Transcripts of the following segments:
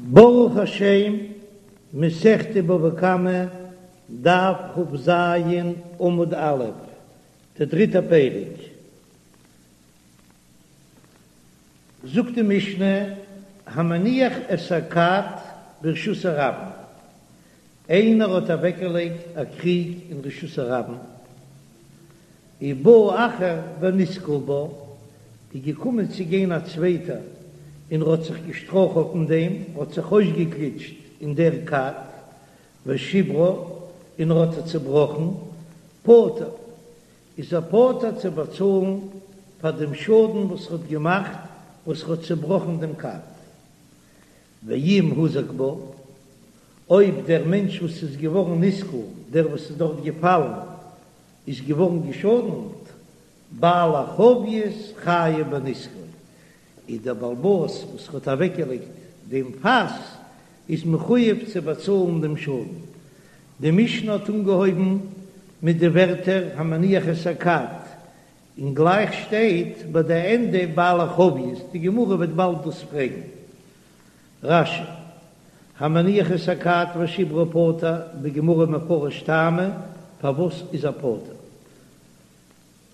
ברוך השם, מסכת בבא קמא, דף כ"ז, עמוד א', דער דריטער פרק. זאגט די משנה, המניח את הכד ברשות הרבים, איינער האט אוועקגעלייגט א קריג אין רשות הרבים, ובא אחר ונתקל בה, איז געקומען צו גיין א צווייטער און ער האט זיך געשטראכלט אין דעם, האט זיך אויסגעגליטשט אין דער כד, ושברה, און ער האט עס צעבראכן, פטור, איז ער פטור צו באצאלן פאר דעם שאדן וואס ער האט געמאכט, וואס ער האט צעבראכן דעם כד. ואם הוזק בה, אויב דער מענטש וואס איז געווארן נתקל, דער וואס איז דארט געפאלן, איז געווארן געשאדנט, בעל החבית חייב בנזקו, איז דער בעל הבית וואס האט אוועקגעלייגט דעם פאס איז מחויב צו באצאלן דעם שאדן. די משנה האט אנגעהויבן מיט די ווערטער המניח את הכד, און גלייך שטייט ביי די ענדע בעל החבית, די גמרא וועט באלד דאס פרעגן. רש"י, המניח את הכד ושברה פטור, בגמרא מפרש טעמא, פארוואס איז ער פטור?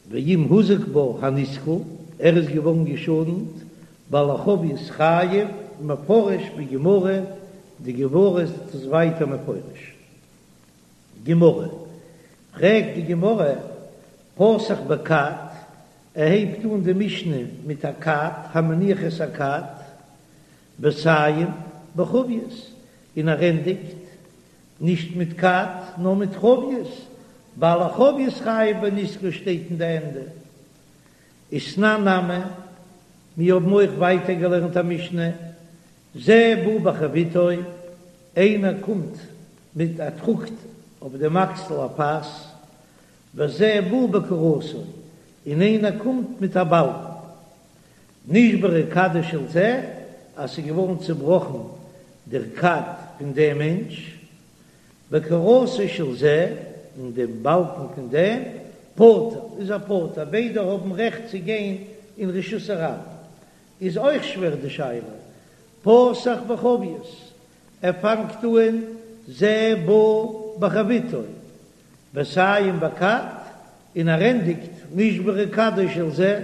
ואם הוזק בה הנתקל, ער איז געווארן געשאדנט, בעל החבית חייב, מפרש בגמרא, די גמרא איז דאס ווייטער מפרש. גמרא, פרעגט די גמרא, פתח בכד, ער הייבט אן די משנה מיט א כד, המניח את הכד, וסיים בחבית, און ער ענדיגט נישט מיט כד נאר מיט חבית, בעל החבית חייב בנזקו שטייט אין די ענדע. ותנן נמי, מיר האבן אויך ווייטער געלערנט א משנה, זה בא בחביתו, איינער קומט מיט א טראגט אויף דעם אקסל א פאס, וזה בא בקורתו, און איינער קומט מיט א באלקן. נשברה כדו של זה, אז ס'איז געווארן צובראכן דער כד פון דעם מענטש, וקורתו של זה, און דעם באלקן פון דעם, פטור, איז ער פטור, ביידע האבן רעכט צו גיין אין רשות הרבים. איז אויך שווער די שאלה, פתח בחבית, ער פאנגט אן זה בא בחביתו, וסיים בכד, און ער ענדיגט נשברה כדו של זה.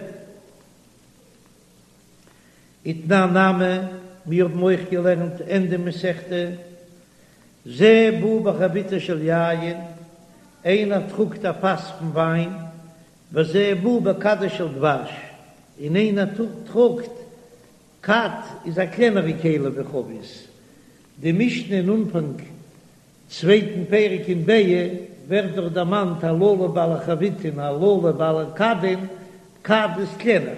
ותנן נמי, מיר האבן אויך געלערנט ענדע מסכתא, זה בא בחביתו של יין, איינער טראגט א פאס פון וויין, וזה בא בכדו של דבש, און איינער טראגט, כד איז א קלענערע כלי ווי חבית, די משנה אין אנפאנג צווייטן פרק אין ביעא ווערט דאך דערמאנט הללו בעלי חביתין הללו בעלי כדין, כד איז קלענער,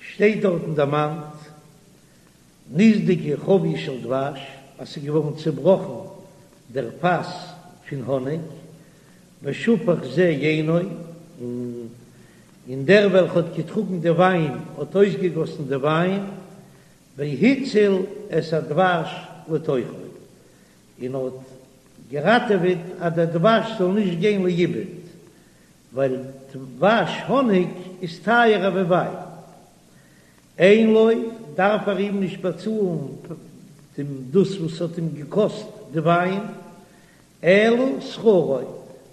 שטייט דארטן דערמאנט נסדקה חבית של דבש אז ס'איז געווארן צובראכן דער פאס פון האניג, ושפך זה יינו, און דער וועלכע האט געטראגן די וויין האט אויסגעגאסן די וויין, והציל את הדבש לתוכו, און האט געראטעוועט אז דער דבש זאל נישט גיין לאיבוד, ווייל דבש האניג איז טייערער ווי וויין. אין לו, דארף ער אים נישט באצאלן דעם דאס וואס האט אים געקאסט די וויין, אלא שכרו,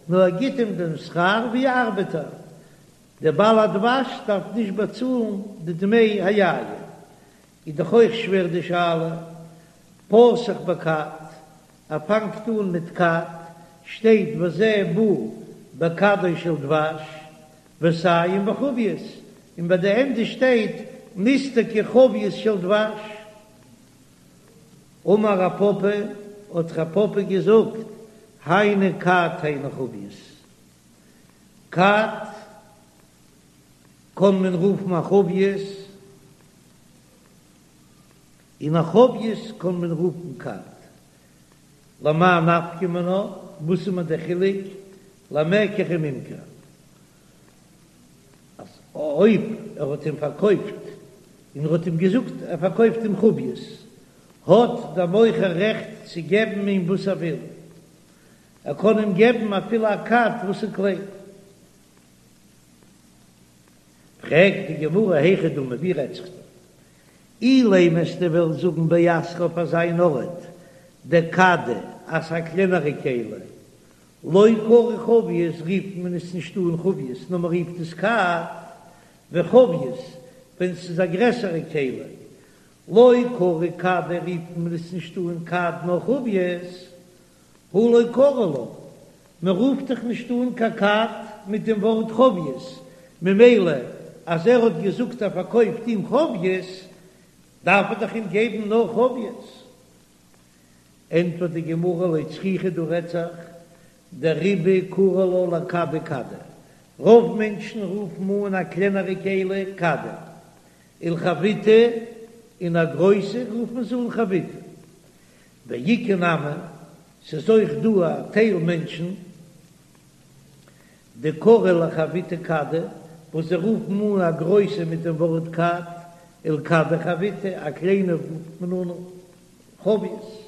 נאר ער גיט אים דעם שכר ווי א ארבעטער, דער בעל הדבש דארף נישט באצאלן די דמי היין. איז דאך אויך שווער די שאלה, פתח בכד, ער פאנגט אן מיט כד, שטייט וזה בא בכדו של דבש, וסיים בחבית, און ביי די ענדע שטייט נסדקה חבית של דבש. אמר רב פפא, האט רב פפא געזאגט, היינו כד היינו חבית. כד קען מען רופן א חבית, און א חבית קען מען רופן כד. למאי נפקא מינה, וואס איז מיר דער חילוק, למקח וממכר, אז אויב ער האט אים פארקויפט און ער האט אים געזאגט ער פארקויפט אים חבית, האט דער מוכר רעכט צו געבן אים וואס ער וויל, ער קען אים געבן אפילו א כד וואס איז קליין. פרעגט די גמרא היכי דמי, ווי רעדט זיך דא? אילימא וועסטו וועלן זאגן באתרא אויף אזא אן ארט דכדא אז א קלענערע כלי לא קרי חבית רופט מען עס נישט אן חבית נאר מען רופט עס כד וחבית ווען ס'איז א גרעסערע כלי לא קרי כדא רופט מען עס נישט אן כד נאר חבית הא לא קרי לה, מען רופט דאך נישט אן קיין כד מיט דעם ווארט חבית, ממילא אז ער האט געזאגט ער פארקויפט אים חבית, דארף ער דאך אים געבן נאר חבית. ענטפערט די גמרא לא צריכא דא רעדט זיך דרובא קרי לה לכדא כדא, רוב מענטשן רופן אן א קלענערע כלי כדא, ולחביתא, און א גרויסע רופן זיי אן חביתא. ואיכא נמי, ס'איז אויך דא א טייל מענטשן דקרי לחביתא כדא, וואס זיי רופן אן א גרויסע מיט דעם ווארט כד, ולכדא חביתא, א קליינע רופט מען אן חבית.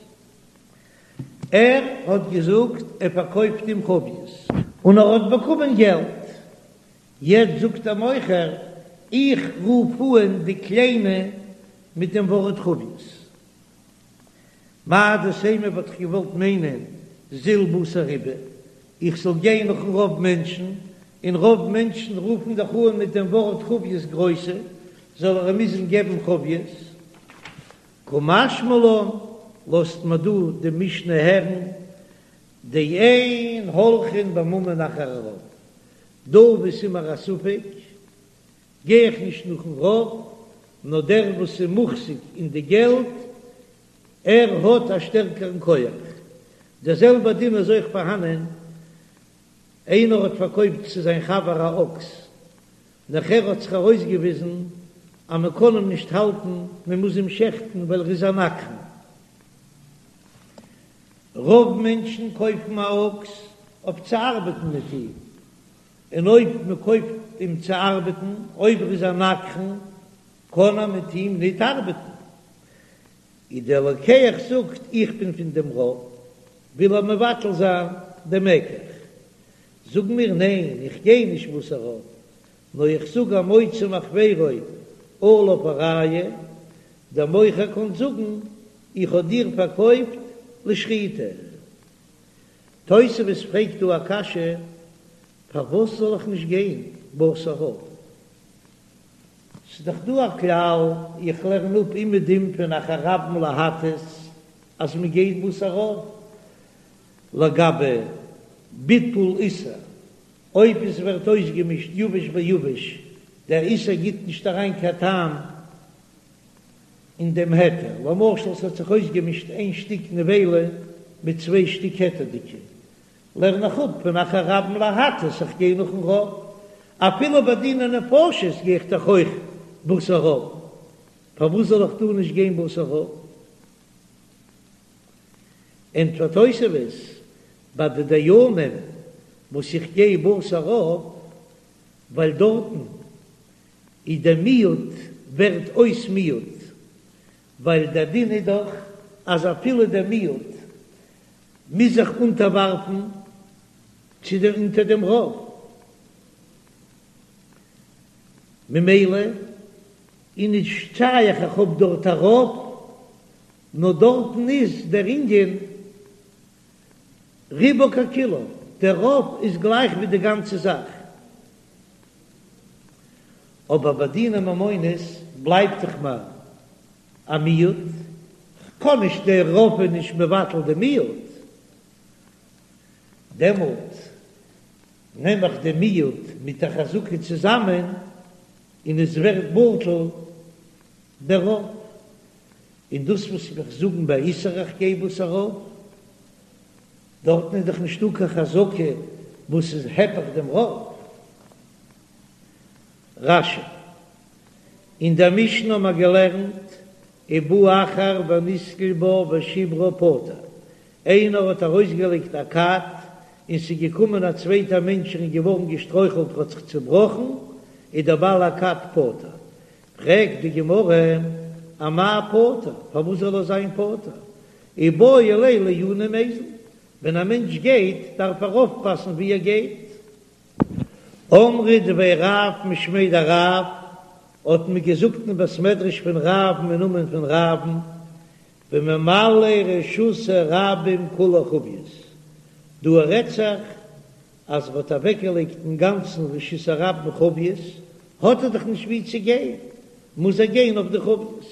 ער האט געזאגט ער פארקויפט אים חבית. און ער האט באקומען געלט. יעצט זאגט דער מוכר, איך רוף אן די קליינע מיט דעם ווארט חבית. מהו דתימא וואלט איך געוואלט מיינען זיל בתר רובא, איך זאל גיין נאכן רוב מענטשן, און רוב מענטשן רופן דאך אן מיט דעם ווארט חבית גרויסע, זאל ער אים מוזן געבן חבית. קא משמע לן, לאזט מען דא די משנה הערן, דאין הולכין בממון אחר הרוב, דא וואו ס'איז מיר א ספק, גיי איך נישט נאכן רוב, נאר דער וואס איז מוחזק אין די געלט, ער האט א שטערקערן כח. דער זעלבער דין איז אויך פארהאנען, איינער האט פארקויפט צו זיין חבר א אקס, נאכער האט זיך ארויסגעוויזן אז מען קען אים נישט האלטן, מען מוז אים שעכטן ווייל ער איז א נגחן. רוב מענטשן קויפן א אקס אויף צו ארבעטן מיט אים, און אויב מען קויפט אים צו ארבעטן, אויב ער איז א נגחן, קען ער מיט אים ניט ארבעטן. איז דער לוקח זאגט, איך בין פון דעם רוב, וויל ער מבטל זיין דעם מקח. זאגן מיר, ניין, איך גיי נישט בתר רוב, נאר איך זאג המוציא מחבירו עליו הראיה, דער מוכר קען זאגן, איך האב דיר פארקויפט לשחיטה. תוספות פרעגט דא א קשיא, פארוואס זאל איך נישט גיין בתר רוב? ס'איז דאך דא א כלל, איך לערן אפ אומעדום פון אחר רבים להטות אז מען גייט בתר רוב לגבי ביטול איסור, אויב עס ווערט אויסגעמישט יבש ביבש, דער איסור גיט נישט אריין קיין טעם אין דעם היתר, למשל ס'האט זיך אויסגעמישט איין שטיק נבילה מיט צוויי שטיק היתר'דיגע, לערן איך אפ פון אחר רבים להטות, איך גיי נאכן רוב, אפילו ביי דיני נפשות גיי איך דאך אויך בתר רוב, פארוואס זאל איך דא נישט גיין בתר רוב? ענטפערט תוספות, ביי די דיינים וואס איך גיי בתר רוב, ווייל דארטן איז דער מיעוט ווערט אויס מיעוט, ווייל דער דין איז דאך אז אפילו דער מיעוט מוז זיך אונטערווארפן צו דעם אונטער דעם רוב, ממילא איז נישט שייך איך האב דארט א רוב, נאר דארטן איז דער ענין רובו ככולו, דער רוב איז גלייך ווי די גאנצע זאך. אבער ביי דיני ממונות בלייבט דאך מיר א מיעוט, כ'קען נישט דער רוב איז נישט מבטל די מיעוט, דעמאלט נעם איך די מיעוט מיט א חזקה צוזאמען און עס ווערט בטל דער רוב, און דאס וואס איך זאגן ביי איסור איך גיי בתר רוב, דארטן איז דאך נישטא קיין חזקה וואס איז היפך דעם רוב. רש"י, אין דער משנה האבן מיר געלערנט ובא אחר ונתקל בה ושברה פטור, איינער האט ארויסגעלייגט א כד און ס'איז געקומען א צווייטער מענטש און איז געווארן געשטרויכלט האט זיך צובראכן, איז דער בעל הכד פטור. פרעגט די גמרא, אמאי פטור, פארוואס זאל ער זיין פטור? איבעי ליה לעיוני ומיזל, ווען א מענטש גייט דארף ער אויפפאסן ווי ער גייט. אמרי דבי רב משמיה דרב. האט מען געזאגט אין בית מדרש פון רב'ן אין נאמען פון רב'ן, בממלא רשות הרבים כולו חביות, דא רעדט זיך אז ער האט אוועקגעלייגט אינגאנצן רשות הרבים חביות, האט ער דאך נישט ווי צו גיין, מוז ער גיין אויף די חביות.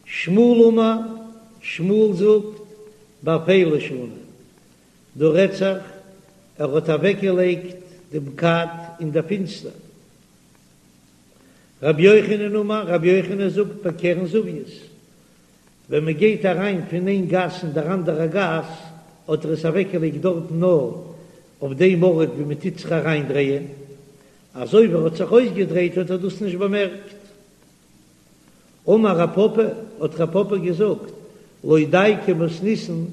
שמואל אמר, שמואל זאגט, באפילה שנו, דא רעדט זיך ער האט אוועקגעלייגט דעם כד אין דער פינסטער. רבי יוחנן אמר, רבי יוחנן זאגט, בקרן זווית, ווען מען גייט אריין פון איין גאס אין דער אנדערע גאס, האט ער עס אוועקגעלייגט דארטן נאר אויף דעם ארט ווי מען טוט זיך אריינדרייען, אזוי ווי ער האט זיך אויסגעדרייט האט ער דאס נישט באמערקט. אמר רב פפא, האט רב פפא געזאגט, לא דייקא מתניתין,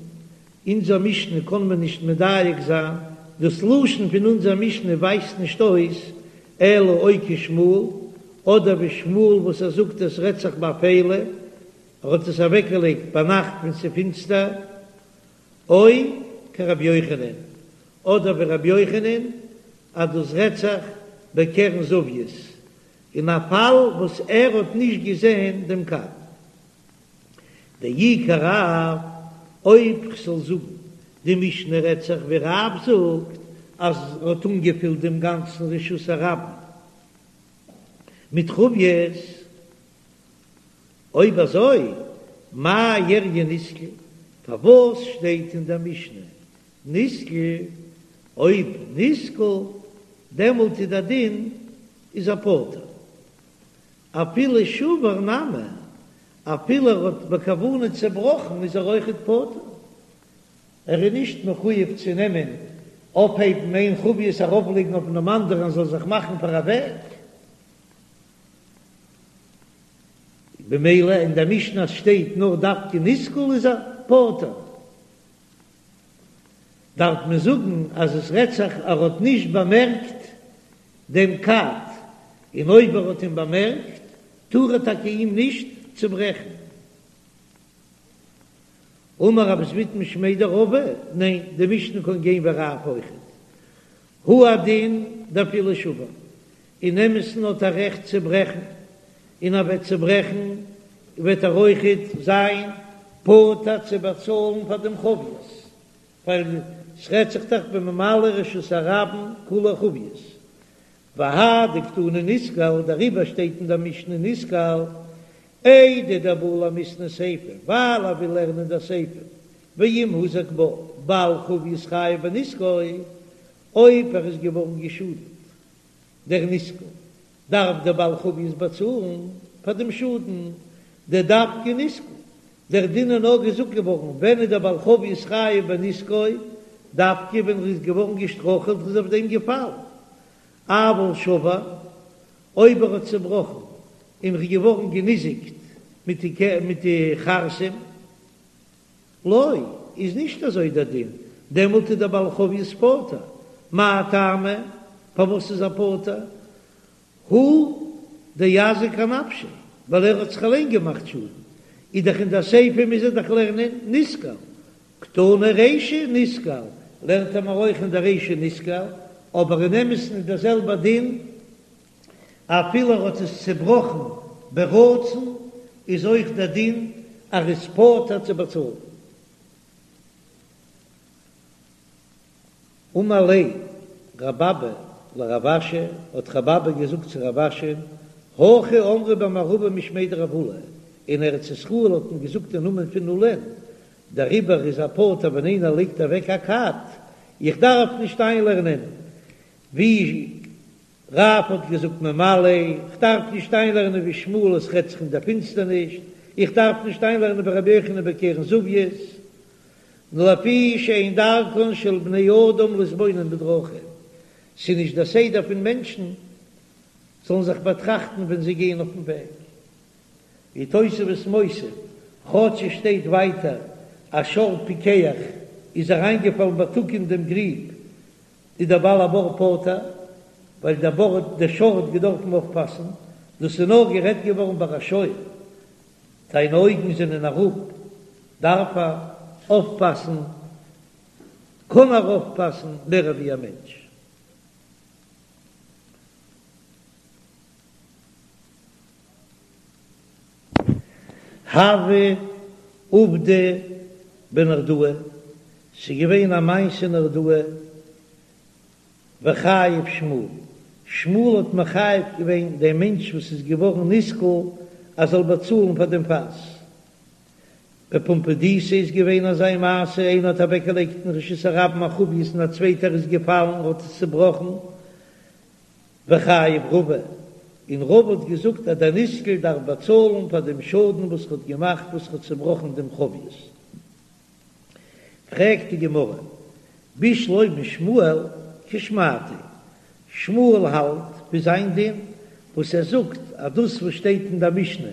אונזער משנה קען מען נישט מדייק זיין, דאס לשון פון אונזער משנה ווייזט נישט אויס אלא או כשמואל, אדער ווי שמואל וואס ער זאגט עס רעדט זיך באפילה, ער האט עס אוועקגעלייגט ביינאכט ווען ס'איז פינסטער, או כרבי יוחנן, אדער ווי רבי יוחנן אז דאס רעדט זיך בקרן זווית, אין א פאל וואס ער האט נישט געזען דעם כד. דאי כרב, אויב כ'זאל זאגן די משנה רעדט זיך ווי רב זאגט אז ער האט אנגעפילט דעם גאנצן רשות הרבים מיט חביות, אויב אזוי מאי איריא נתקל, פארוואס שטייט אין דער משנה נתקל, אויב נתקל דעמאלט איז דער דין איז ער פטור, אפילו שבר נמי, אפילו ער האט בכוונה צעבראכן איז ער אויכעט פטור, ער איז נישט מחויב צו נעמען אויפהייבן איין חבית ארויפלייגן אויף דעם אנדערן זאל זיך מאכן פאר א וועג. במילא אין דער משנה שטייט נאר דווקא נתקל איז ער פטור, דארף מען זאגן אז עס רעדט זיך ער האט נישט באמערקט דעם כד, און אויב ער האט אים באמערקט טאר ער טאקע אים נישט צוברעכן. אמר רב זביד משמיה דרבא, ניין, די משנה קען גיין ווי רב אויכעט. הוא הדין דאפילו שבר, אין אמת'ן האט ער רעכט צו ברעכן, און ער וועט צוברעכן וועט ער אויכעט זיין פטור צו באצאלן פאר דעם חביות, ווייל ס'רעדט זיך דאך בממלא רשות הרבים כולו חביות, והא דקתני נתקל, דעריבער שטייט אין דער משנה נתקל, איידי דבעי למיתני סיפא, ווייל ער וויל לערנען דער סיפא, ואם הוזק בה, בעל חבית חייב בנזקו, אויב ער איז געווארן געשאדנט דער נתקל, דארף דער בעל חבית באצאלן פאר דעם שאדן, דדווקא נתקל, דער דין איז נאר געזאגט געווארן ווען איז דער בעל חבית חייב בנזקו, דווקא ווען ער איז געווארן געשטראכעלט איז אויף דעם געפאלן, אבל שבר, אויב ער האט צעבראכן און איז געווארן געניזיקט מיט די מיט די חרסים, לא, איז נישט אזוי דער דין, דעמאלט איז דער בעל חבית פטור, מאי טעמא, פארוואס איז ער פטור? הוא דאזיק אנפשיה, ווייל ער האט זיך אליין געמאכט שאדן, איז דאך אין דער סיפא מוז ער דאך לערנען נתקל, קתני רישא נתקל, לערנט ער מיר אויך אין דער רישא נתקל, אבער אין אמת'ן איז דער זעלבער דין, אפילו ער האט עס צעבראכן ברצון, איז אויך דער דין אז ער איז פטור צו באצאלן. אמר ליה רב אבא לרב אשי, האט רב אבא געזאגט צו רב אשי, הכי אמרי במערבא משמיה דרב עולא, אין ארץ ישראל האט מען געזאגט אין נאמען פון עולא'ן, דעריבער איז ער פטור ווען איינער לייגט אוועק א כד, איך דארף נישט איינלערנען ווי רב האט געזאגט ממלא, איך דארף נישט איינלערנען ווי שמואל עס רעדט זיך אין דער פינסטערניש, איך דארף נישט איינלערנען ווי רבי יוחנן בקרן זווית, נאר לפי שאין דרכן של בני אדם להתבונן בדרכים, ס'איז נישט דער סדר פון מענטשן זאלן זיך באטראכטן ווען זיי גייען אויפן וועג. ווי תוספות מוסיף, כאטש עס שטייט ווייטער אז שור פיקח איז אריינגעפאלן בייטאג אין דעם גריב, איז דער בעל הבור פטור, ווייל דער בור דער שור האט געדארפן אויפפאסן, דאס איז נאר גערעדט געווארן ביי א שור, זיינע אויגן זענען אראפ, דארף ער אויפפאסן, קען ער אויפפאסן מער ווי א מענטש. הוה עובדא בנהרדעא, ס'איז געווען א מעשה אין נהרדעא, וחייב שמואל, שמואל האט מחייב געווען דעם מענטש וואס איז געווארן נסקל אז זאל באצאלן פאר דעם פאס. בפומבדיתא איז געווען אזא מעשה, איינער האט אוועקגעלייגט אין רשות הרבים א חבית און א צווייטער איז געפאלן און האט עס צובראכן, וחייב רבא, און רבא האט געזאגט אז דער נסקל דארף באצאלן פאר דעם שאדן וואס ער האט געמאכט וואס ער האט צובראכן דעם חבית. פרעגט די גמרא, בשלמא שמואל כשמעתיה, שמואל האלט ווי זיין דין וואס ער זאגט אז דאס וואס שטייט אין דער משנה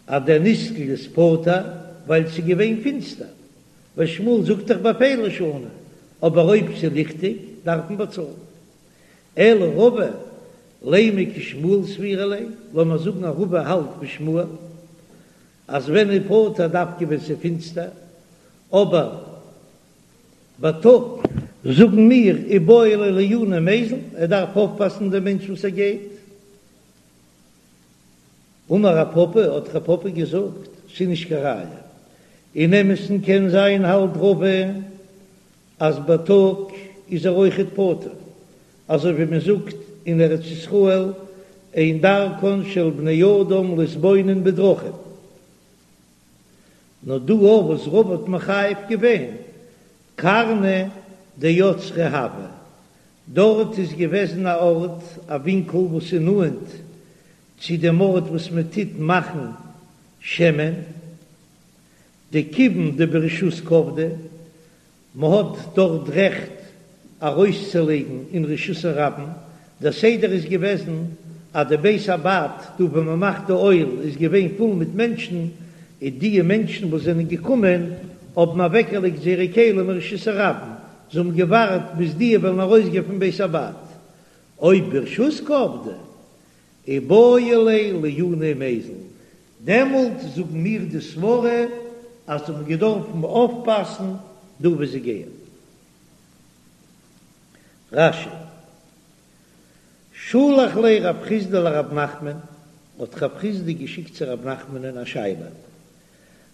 אז דער נסקל איז פטור ווייל ס'איז געווען פינסטער, ווייל שמואל זאגט דאך באפילה שנו, אבער אויב ס'איז ליכטיג דארף מען באצאלן. אלא רבא, לימא כשמואל סבירא ליה, לאמיר זאגן אז רבא האלט ווי שמואל, אז ווען איז פטור דווקא ווען ס'איז פינסטער, אבער בייטאג זאגן מיר איבעי ליה לעיוני ומיזל, ער דארף אויפפאסן דעם מענטש וואס ער גייט. אמר רב פפא, האט רב פפא געזאגט, ס'איז נישט קיין ראיה. אין אמת'ן קען זיין האלט רבא אז בייטאג איז ער אויכעט פטור, אזוי ווי מען זאגט אין ארץ ישראל אין דרכן של בני אדם להתבונן בדרכים. נאר דא אויף וואס רבא האט מחייב געווען קרנא דאוצרא הוה, דארט איז געוועזן א ארט א ווינקל וואס איז נאנט צו דעם ארט וואס מען טוט מאכן שמן, דכיון דברשות קעבדי, מ'האט דארט רעכט ארויסצולייגן אין רשות הרבים, דער סדר איז געוועזן אז די בית הבד דא וואו מ'מאכט די אויל איז געווען פול מיט מענטשן, און די מענטשן וואס זענען געקומען האבן אוועקגעלייגט זייערע כלים אין רשות הרבים, זיי האבן געווארט ביז די וועלן ארויסגיין פון בית הבד, אויב ברשות קעבדי איבעי ליה לעיוני ומיזל, דעמאלט זאגן מיר די סברה אז זיי האבן געדארפן אויפפאסן דא וואו זיי גייען. רש"י, שלח ליה רב חסדא לרב נחמן, האט רב חסדא געשיקט צו רב נחמנ'ן א שאלה,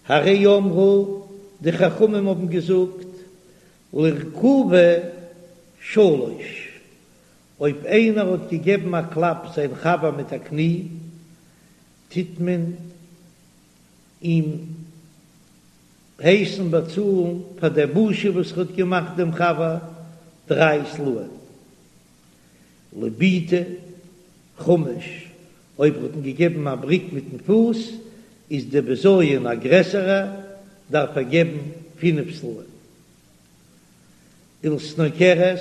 הרי אמרו, די חכמים האבן געזאגט, לרכובה שלש, אויב איינער האט געגעבן א קלאפ זיין חבר מיט א קני, טוט מען אים הייסן באצאלן פאר דער בושה וואס ער האט געמאכט דעם חבר דריי סלעים. לבעיטה חמש, אויב ער האט אים געגעבן א בריק מיטן פוס, איז דער בזיון א גרעסערע, דארף ער געבן פינף סלעים. ולסנוקרת,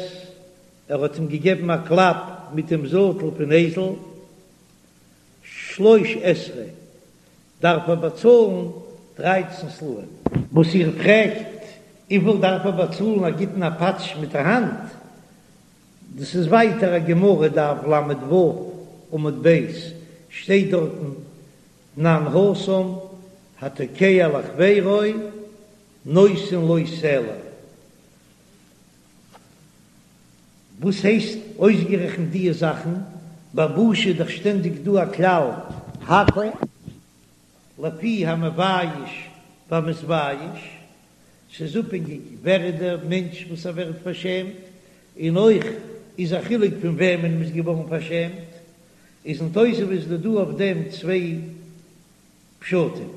ער האט אים געגעבן א קלאפ מיט דעם זאטל פון אייזל, שלש עשרה, דארף ער באצאלן דרייצן סלעים. וואס איר פרעגט וויפיל דארף ער באצאלן א גיט אים א פאטש מיט א האנט, דאס איז ווייטער א גמרא דף ל"ו עמוד ב', שטייט דארטן תנן התם התוקע לחבירו נותן לו סלע. וואס הייסט אויסגערעכנט דיע זאכן? ביי בושה איז דאך שטענדיג דא א כלל הכל לפי המבייש והמתבייש, ס'איז אפהענגיג ווער איז דער מענטש וואס ער ווערט פארשעמט, און אויך איז א חילוק פון וועמען מ'איז געווארן פארשעמט, איז אין תוספות איז דא אויף דעם צוויי פשטים,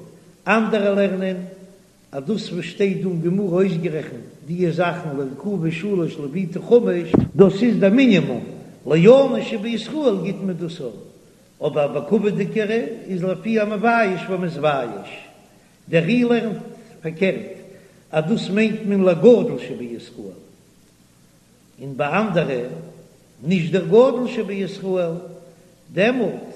אנדערע לערנען אז דאס וואס שטייט דא אין גמרא אויסגערעכנט דיע זאכן לרכובה שלש לבעיטה חמש, דאס איז דער מינימום, לעני שבישראל גיט מען דאס אויך, אבער בכבוד'יגערע איז לפי המבייש והמתבייש, דער ר"י לערנט פארקערט אז דאס מיינט מען לגדול שבישראל, און ביי אנדערע נישט דער גדול שבישראל, דעמאלט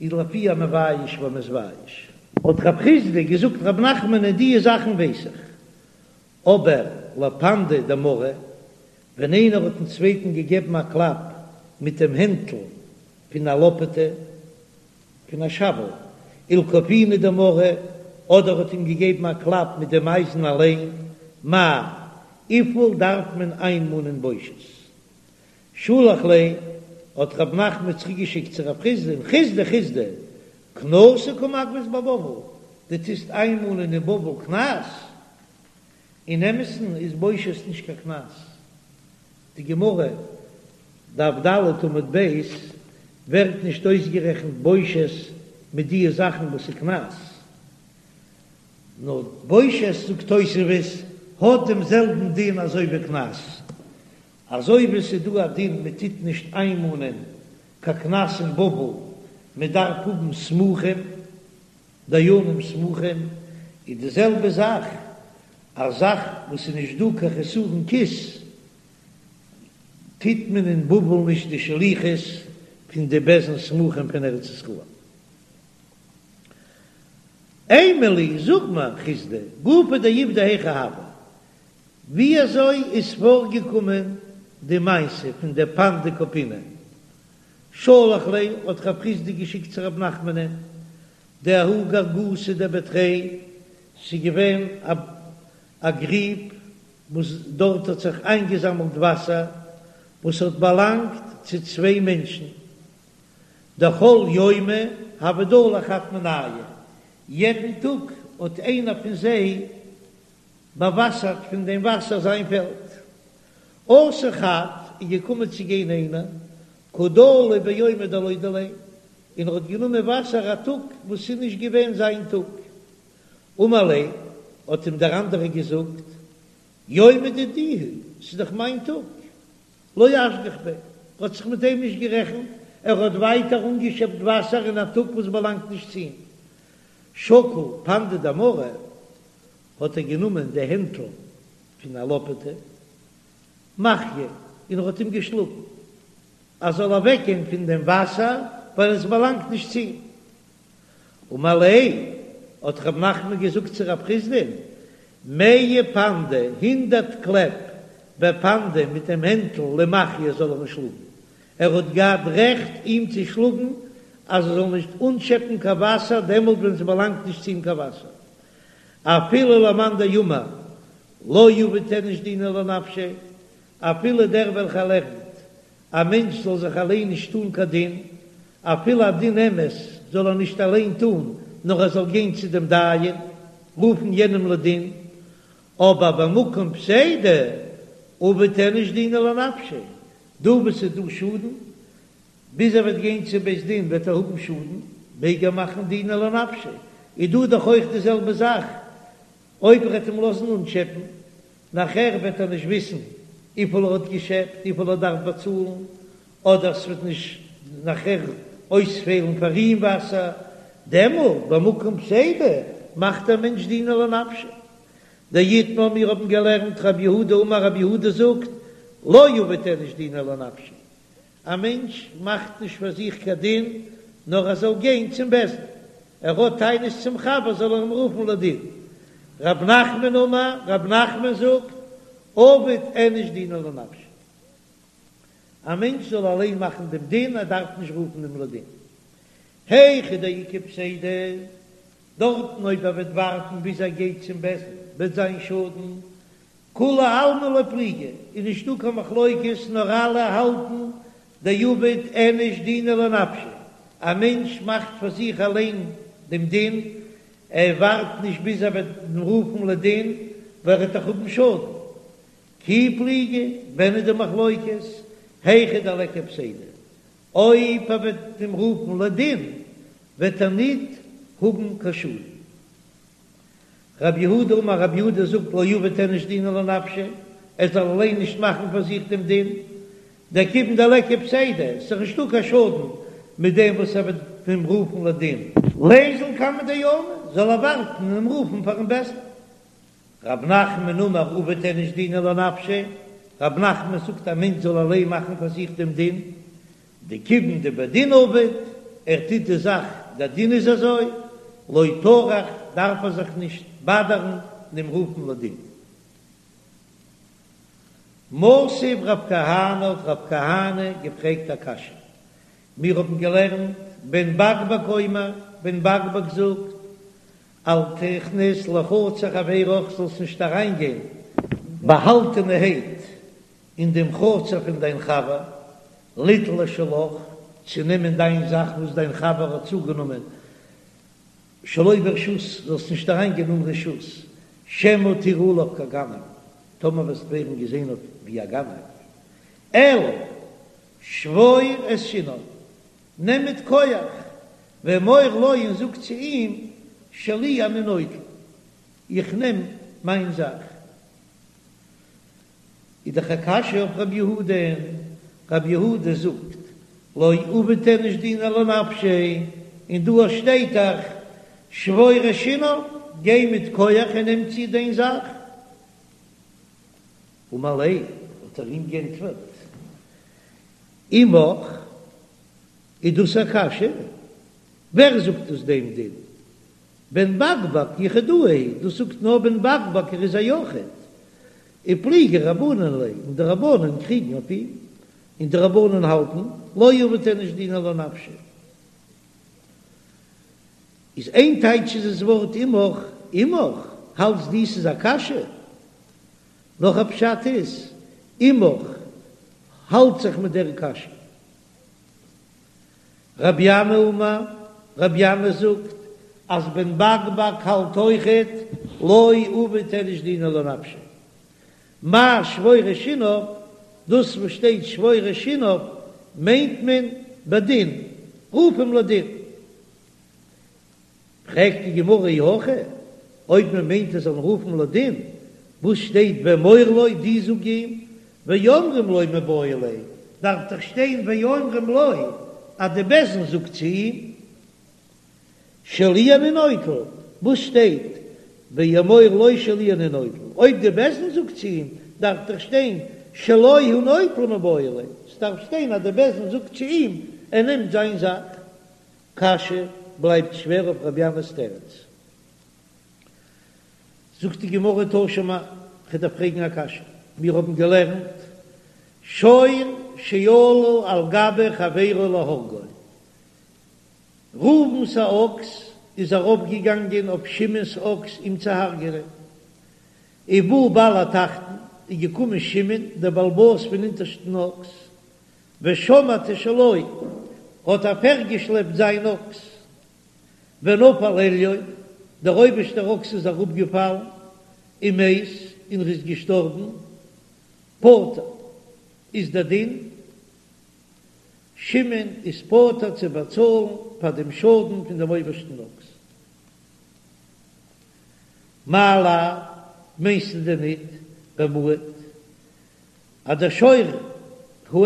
איז לפי המבייש והמתבייש. האט רב חסדא געזאגט רב נחמנען דיע זאכן ווייס איך, אבער לפנדא דמרא, ווען איינער האט דעם צווייטן געגעבן א קלאפ מיט דעם הענטל פון א לאפעטע, פון א שאוועל, ולכופיני דמרא, אדער האט אים געגעבן א קלאפ מיט דעם אייזן אליין, מאי, וויפיל דארף מען איינמאנען בושת? שלח ליה, האט רב נחמן צוריק געשיקט צו רב חסדא'ן, חסדא חסדא, קנסא קא מגבית בבבל. דו טוסט איינמאנען אין בבל קנס, אין אמת'ן איז בושת נישט קיין קנס. די גמרא, דף ד עמוד ב', ווערט נישט אויסגערעכנט בושת מיט די זאכן וואס איז קנס. נאר בושת זאגט תוספות האט דעם זעלבן דין אזוי ווי קנס. אזוי ווי ס'איז דא א דין מען טוט נישט איינמאנען קיין קנס אין בבל, מען דארף האבן סמוכים, דיינים סמוכים, איז די זעלבע זאך א זאך וואס איז נישט דא קיין חסרון כיס, טוט מען אין בבל נישט די שליחות פון די בית דין סמוכים פון ארץ ישראל. אימא לי, זאג מיר, חסדא, גופא דעובדא היכי הוה, ווי אזוי איז פארגעקומען די מעשה פון די פנדא קופינא? שלח ליה האט רב חסדא געשיקט צו רב נחמנ'ן דההוא גרגותא דבי תרי, ס'איז געווען א גריב וואס דארט האט זיך איינגעזאמלט וואסער וואס האט באלאנגט צו צוויי מענטשן, דכל יומא הוה דלי חד מינייהו, יעדן טאג האט איינער פון זיי באוואסערט פון דעם וואסער זיין פעלד. אתא חד איז געקומען צו גיין איינער, קא דלי ביומא דלא דיליה, און ער האט גענומען וואסער א טאג וואס איז נישט געווען זיין טאג. אמר ליה, האט אים דער אנדערער געזאגט, יומא דידי הוא, ס'איז דאך מיין טאג. לא אשגח ביה, ער האט זיך מיט דעם נישט גערעכנט, ער האט ווייטער אנגעשעפט וואסער אין א טאג וואס באלאנגט נישט צו אים. שקל פנדא דמרא, האט ער גענומען די הענטל פון א לאפעטע, מחייה, און ער האט אים געשלאגן, ער זאל אוועקגיין פון דעם וואסער, ווייל עס באלאנגט נישט צו אים. אמר ליה, האט רב נחמן געזאגט צו רב חסדא'ן, מאה פנדי, הונדערט קלעפ, בפנדא, מיט דעם הענטל למחייה זאל ער אים שלאגן, ער האט געהאט רעכט אים צו שלאגן אז ער זאל נישט אנשעפן קיין וואסער דעמאלט ווען ס'באלאנגט נישט צו אים קיין וואסער, אפילו למאן דאמר לא עביד איניש דינא לנפשיה, אפילו דער וועלכער לערנט א מענטש זאל זיך אליין נישט טאן קיין דין, אפילו א דין אמת זאל ער נישט אליין טאן, נאר ער זאל גיין צו דעם דיין, רופן יענעם לדין, אבער במקום פסידא עביד איניש דינא לנפשיה, דא וואו ס'איז דא שאדן, ביז ער וועט גיין צו בית דין וועט ער האבן שאדן, מעג ער מאכן דינא לנפשיה, איז דא דאך אויך די זעלבע זאך, אויב ער וועט אים לאזן אנטשעפן, נאכער וועט ער נישט וויסן וויפיל ער האט געשעפט, וויפיל ער דארף באצאלן, אדער ס'וועט נישט נאכער אויספעלן פאר אים וואסער, דעמאלט במקום פסידא מאכט דער מענטש דינא לנפשיה. דאיתמר מיר האבן געלערנט רב יהודה אמר רב יהודה זאגט לא עביד איניש דינא לנפשיה, א מענטש מאכט נישט פאר זיך קיין דין, נאר ער זאל גיין צום בית דין, ער האט טענות צום חבר זאל ער אים רופן לדין. רב נחמן אמר, רב נחמן זאגט, עביד איניש דינא לנפשיה, א מענטש זאל אליין מאכן דעם דין, ער דארף נישט רופן אים לדין. היכא דאיכא פסידא, דארטן אויב ער וועט ווארטן ביז ער גייט צום בית דין וועט זיין שאדן, כולי עלמא לא פליגי, איז נישטא קיין מחלוקת נאר אלע האלטן דעביד איניש דינא לנפשיה, א מענטש מאכט פאר זיך אליין דעם דין, ער ווארט נישט ביז ער וועט אים רופן לדין ווייל ער וועט דאך האבן שאדן. כי פליגי, ווען איז די מחלוקת? היכא דליכא פסידא, אויב ער וועט אים רופן לדין וועט ער ניט האבן קיין שאדן. רב יהודה אמר רב יהודה זאגט לא עביד איניש דינא לנפשיה, ער זאל אליין נישט מאכן פאר זיך דעם דין, דכיון דליכא פסידא, ס'איז דאך נישטא קיין שאדן מיט דעם וואס ער וועט אים רופן לדין. ליזיל קמיה דיינא, זאל ער ווארטן און אים רופן פארן בית דין. רב נחמן אמר עביד איניש דינא לנפשיה, רב נחמן זאגט א מענטש זאל אליין מאכן פאר זיך דעם דין, דכיון דבדין עביד, ער טוט די זאך, דער דין איז אזוי, לא טרח, דארף ער זיך נישט באדערן אים רופן לדין. מתיב רב כהנא האט רב כהנא געפרעגט א קשיא, מיר האבן געלערנט בן בקבק אומר, בן בקבק זאגט, אל תכנס לחצר חברך זאלסט נישט אריינגיין באהאלטענערהייט אין דעם חצר פון דיין חבר, ליטול את שלך, צו נעמען דיין זאך וואס דיין חבר האט צוגענומען. שלא ברשות, זאלסט נישט אריינגיין אן רשות, שמא תראה עליו כגנב, טאמער וועסט ווערן געזען אויף ווי א גנב, אלא שבור את שיניו, נעם מיט כח, ואמור לו און זאג צו אים, שלי אני נוטל, איך נעם מיין זאך. איז דאך א קשיא אויף רב יהודה'ן, רב יהודה זאגט לא עביד איניש דינא לנפשיה, און דא שטייט דאך שבור את שיניו, גיי מיט כח און נעם צו דיין זאך. אמר ליה, האט ער אים גענטפערט, עמך, איז דאס א קשיא? ווער זאגט דאס דעם דין? בן בקבק יחידאה היא, דאס זאגט נאר בן בקבק ער איז א יחיד, ופליגי רבנן עליה, און די רבנן קריגן אויף אים, און די רבנן האלטן, לא עביד איניש דינא לנפשיה. איז איין טייטש איז עס ווארט עמך, עמך, האלטסט דו ס'איז א קשיא? נאך א פשט איז, עמך האלט זיך מיט דער קשיא. רבי ינאי אמר, רבי ינאי זאגט אז בן בקבק האלט אויכעט לא עביד איניש דינא לנפשיה. מאי שבור את שיניו, דאס וואס שטייט שבור את שיניו מיינט מען בדין, רוף אים לדין. פרעגט די גמרא אי הכי, אויב מען מיינט ער זאל רופן לדין, וואס שטייט ואמור לו, דו זאג אים, ואומרים לו מיבעי ליה, דארף דאך שטיין ואומרים לו אז די בית דין זאגט צו אים, שלי אני נוטל, וואס שטייט ואמור לו שלי אני נוטל, אויב די בית דין זאגט צו אים, דארף דאך שטיין שלו הוא נוטל מיבעי ליה, ס'דארף שטיין אז די בית דין זאגט צו אים ער נעמט זיין זאך. קשיא בלייבט שווער אויף רבי ינאי'ס תירוץ. זאגט די גמרא תא שמע, כ'וועל דיר פרעגן א קשיא, מיר האבן געלערנט שור שעלה על גבי חברו להורגו, ראובן'ס א אקס איז ארויפגעגאנגען אויף שמעון'ס אקס אים צו הרג'נען, ובא בעל התחתון, איז געקומען שמעון דער בעל הבית פון אונטערשטן אקס, ושמט את שלו, האט אפירגעשלעפט זיין אקס, ונפל עליון, דער אויבערשטער אקס איז אראפגעפאלן, ומת, און ער איז געשטארבן, פטור, איז דער דין, שמעון איז פטור צו באצאלן פאר דעם שאדן פון דעם אויבערשטן אקס. מאי לאו, מיינסטו דען ניט, במועד, אז דער שור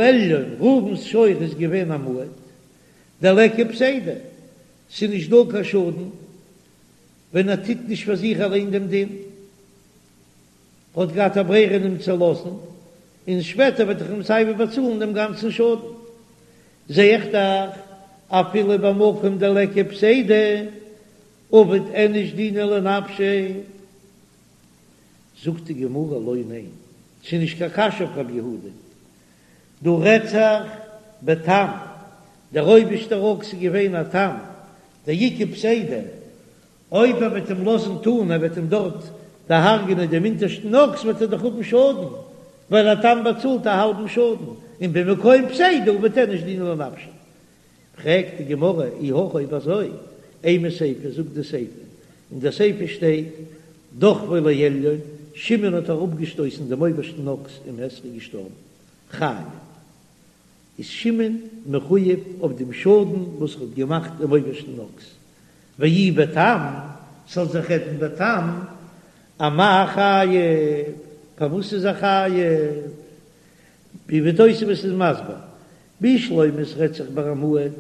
העליון, ראובן'ס שור איז געווען א מועד, דליכא פסידא, ס'איז נישט דא קיין שאדן ווען ער טוט נישט פאר זיך אליין דעם דין, האט געהאט א ברירה אים צו לאזן, און שפעטער וועט ער אים סייווי באצאלן דעם גאנצן שאדן. זע איך דאך, אפילו במקום דליכא פסידא, עביד איניש דינא לנפשיה. זאגט די גמרא לא ניין, ס'איז נישט קיין קשיא אויף רב יהודה, דא רעדט זיך בתם, דער אויבערשטער אקס איז געווען א תם, דאיכא פסידא, אויב ער וועט אים לאזן טאן, ער וועט אים דארט דערהרג'ענען דעם אונטערשטן אקס וועט ער דאך האבן שאדן, ווייל א תם באצאלט א האלבן שאדן, און במקום פסידא עביד איניש דינא לנפשיה. פרעגט די גמרא, אי הכי אויב אזוי, אימא סיפא, זאגט די סיפא, אין די סיפא שטייט, דחפו לעליון, שמעון האט אראפגעשטויסן דעם אויבערשטן אקס ומת איז געשטארבן, חייב, איז שמעון מחויב אויף דעם שאדן וואס ער האט געמאכט דעם אויבערשטן אקס, ואי בתם, ס'זאל זיך רעדן בתם, אמאי חייב, פארוואס איז ער חייב? ווי תוספות איז מסביר, בשלמא ס'רעדט זיך ביי א מועד,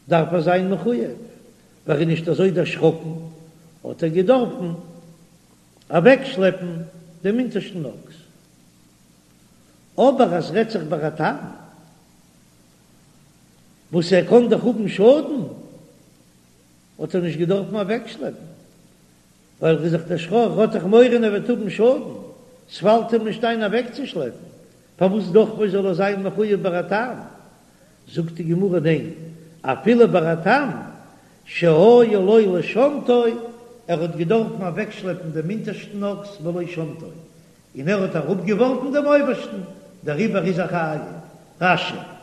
דארף ער זיין מחויב, ווייל ער איז נישט אזוי דערשראקן, האט ער געדארפן אוועקשלעפן דעם אונטערשטן אקס. אבער אז ס'רעדט זיך ביי א תם, וואס ער קען דאך האבן שאדן, האט ער נישט געדארפן אוועקשלעפן, ווייל ער איז דאך דערשראקן, ער האט דאך מורא ער וועט האבן שאדן, ס'פאלט אים נישט איין אוועקצושלעפן, פארוואס דחפו זאל ער זיין מחויב ביי א תם? זאגט די גמרא ניין, אפילו ביי א תם שהיה לו לשמטו, ער האט געדארפן אוועקשלעפן דעם אונטערשטן אקס ולא שמטו, און ער האט אראפגעווארפן דעם אויבערשטן, דעריבער איז ער חייב. רש"י.